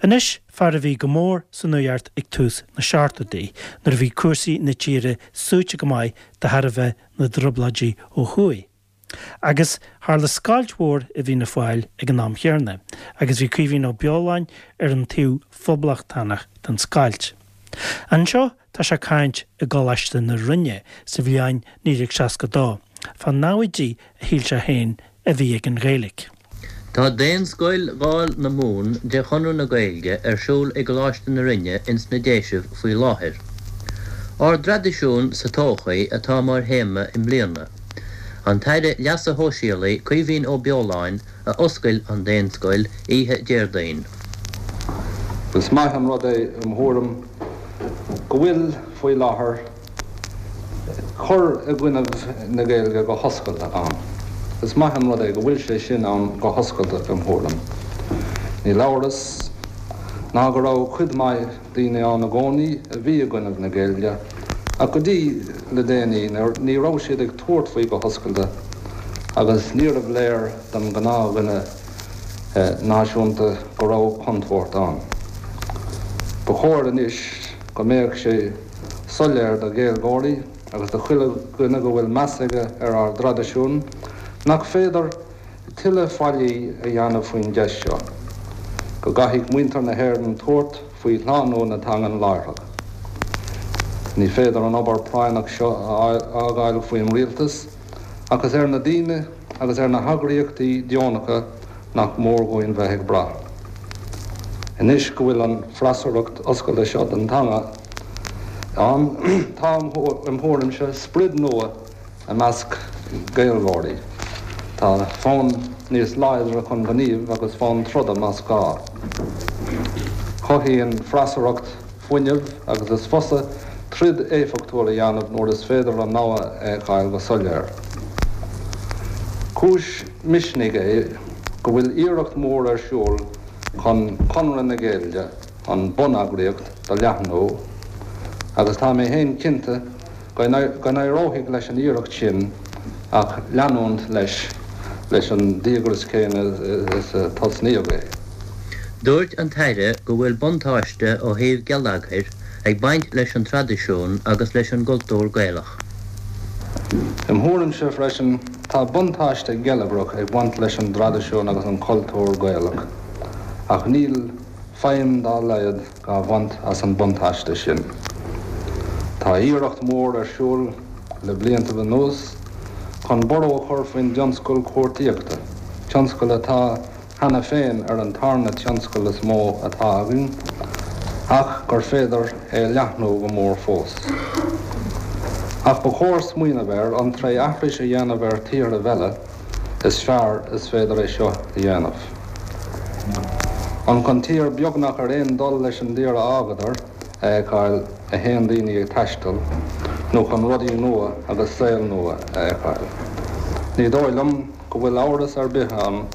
Anois, fear a bhí go mór san nuacht ag tús na seachtóidí, nuair a bhí cúrsaí na tíre suaite go maith de thairbhe na dtrioblóidí ó thuaidh. Agus tharla scoilt mhór i bhFianna Fáil ag an am chéanna, agus bhí Caoimhín Ó Beoláin ar an taobh phoblachtánach den scoilt. Anseo tá sé ag caint i gColáiste na Rinne sa bhliain 1962, fá namhaidí a shíl sé féin a bhí ag an Ghaeilge. Tá Daonscoil Dháil na Mumhan de Chonradh na Gaeilge ar siúl i gColáiste na Rinne ins na Déisibh faoi láthair. Ár dTraidisiún sa Todhchaí atá mar théama i mbliana. An tAire Leasa Shóisialaigh Caoimhín Ó Beoláin a oscail an Daonscoil oíche Déardaoin. Is maith an rud é im thuairim go bhfuil faoi láthair cur i gcoinnibh na Gaeilge go hoscailte ann. Is maith an rud é go bhfuil sé sin ann go hoscailte im thuairim. Níl amhras ná go raibh cuid maith daoine ann i gcónaí a bhí i gcoinnibh na Gaeilge ach go dtí le déanaí ní raibh siad ag tabhairt faoi go hoscailte agus níorbh léir don ghnáthdhuine náisiúnta go raibh contúirt ann. Ba chóir anois go mbeadh sé soiléir do Ghaeilgeoirí agus do chuile dhuine go bhfuil meas aige ar ár dtraidisiún nach féidir tuilleadh faillí a dhéanamh faoin gceist seo, go gcaithfidh muintir na hÉireann tabhairt faoi shlánú na teangan láithreach. Ní féidir an obair práinneach seo a fhágáil faoin rialtas ach is ar na daoine agus ar na heagraíochtaí deonacha nach mór dhúinn bheith ag brath. Anois go bhfuil an freasúracht oscailte seo don teanga ann, tá, im thuairimse, sprid nua i measc Gaeilgeoirí. Tá fonn níos láidre chun gnímh agus fonn troda más gá. Cothaíonn freasúracht fuinneamh agus is fusa troid éifeachtúil a dhéanamh nuair is féidir an namhaid a fheiceáil go soiléir. Cúis misnigh é go bhfuil iarracht mhór ar siúl chun Conradh na Gaeilge, an bhuneagraíocht, do leathnú agus tá mé féin cinnte go n-éireoidh leis an iarracht sin ach leanúint leis leis an díograis céanna is a tosnaíodh é. Dúirt an tAire go bhfuil buntáiste ó thaobh geilleagair ag baint leis an traidisiún agus leis an gcultúr Gaelach. Im thuairimse freisin, tá buntáiste geilleagrach ag baint leis an dtraidisiún agus an cultúr Gaelach, ach níl feidhm dá laghad dhá bhaint as an buntáiste sin. Tá iarracht mhór ar siúl le bliantaibh anuas chun borradh a chur faoin dtionscal cuartaíochta, tionscal atá cheana féin ar an tarna tionscal is mó atá againn, ach gur féidir é a leathnú go mór fós. Ach ba chóir smaoineamh air an tré aithris a dhéanamh ar thíorthaibh eile is fearr is féidir é seo a dhéanamh. An chun tír beagnach ar aon dul leis an dtír a fhágadar a fheiceáil a théann daoine ag taisteal, nó chun rudaí nua agus saol nua a fheiceáil? Ní dóigh liom go bhfuil amhras ar bith ann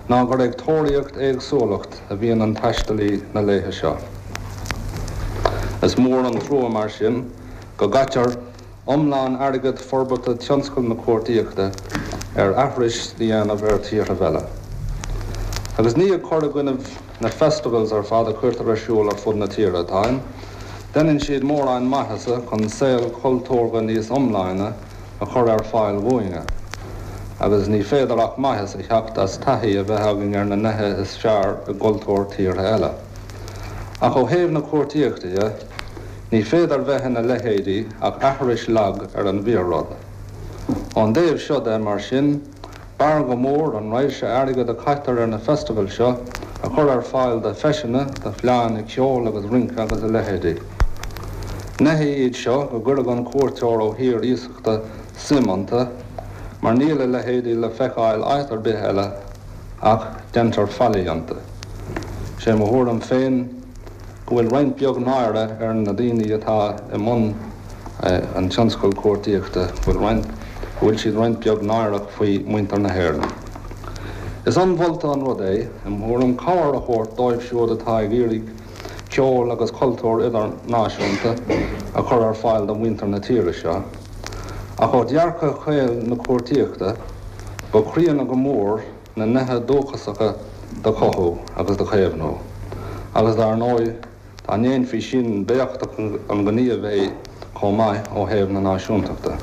ná gur ag tóraíocht éagsúlacht a bhíonn an taistealaí na laethe seo. Is mór an trua mar sin go gcaitear iomlán airgead forbartha tionscal na cuartaíochta ar aithris a dhéanamh ar thíorthaibh eile. Agus ní ag cur i gcoinnibh na festivals ar fad a cuirtear ar siúl ar fud na tíre atáim, deineann siad mórán maitheasa chun saol cultúrtha níos iomláine a chur ar fáil dhúinne, agus ní féidir ach maitheas a theacht as taithí a bheith againn ar na neithe is fearr i gcultúr tíortha eile. Ach ó thaobh na cuartaíochta dhe, ní féidir bheith ina leithéidí ach aithris lag ar an bhfíor-rud. Ón dtaobh seo de, mar sin, B'fhearr go mór an raidhse airgid a caitear ar na festivals seo a chur ar fáil do feiseanna, do fleánna ceoil agus rince agus a leithéidí. Neithe iad seo go gcuirfeadh an cuairteoir ó thír iasachta suim iontu, mar níl a leithéidí le feiceáil áit ar bith eile ach deintear faillí iontu. Sé mo thuairim féin go bhfuil roinnt beag náire ar na daoine atá i mbun an tionscail cuartaíochta, go bhfuil roinnt, go bhfuil siad roinnt beag náireach faoi mhuintir na hÉireann. Is ionmholta an rud é, im thuairim, cabhair a thabhairt dóibh siúd atá ag iarraidh ceol agus cultúr idirnáisiúnta a chur ar fáil do mhuintir na tíre seo. Ach ó dhearcadh caol na cuartaíochta, ba chríonna go mór na neithe dúchasacha do chothú agus do chaomhnú. Agus dar ndóigh, dá ndéanfaí sin, b'éachtach an gníomh é chomh maith ó thaobh na náisiúntachta.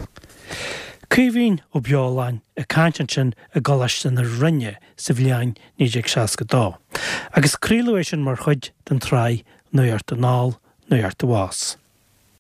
Caoimhín Ó Beoláin ag caint ansin i gColáiste na Rinne sa bhliain 1962, agus craoladh é sin mar chuid den tsraith Nuacht Anall, Nuacht Abhus.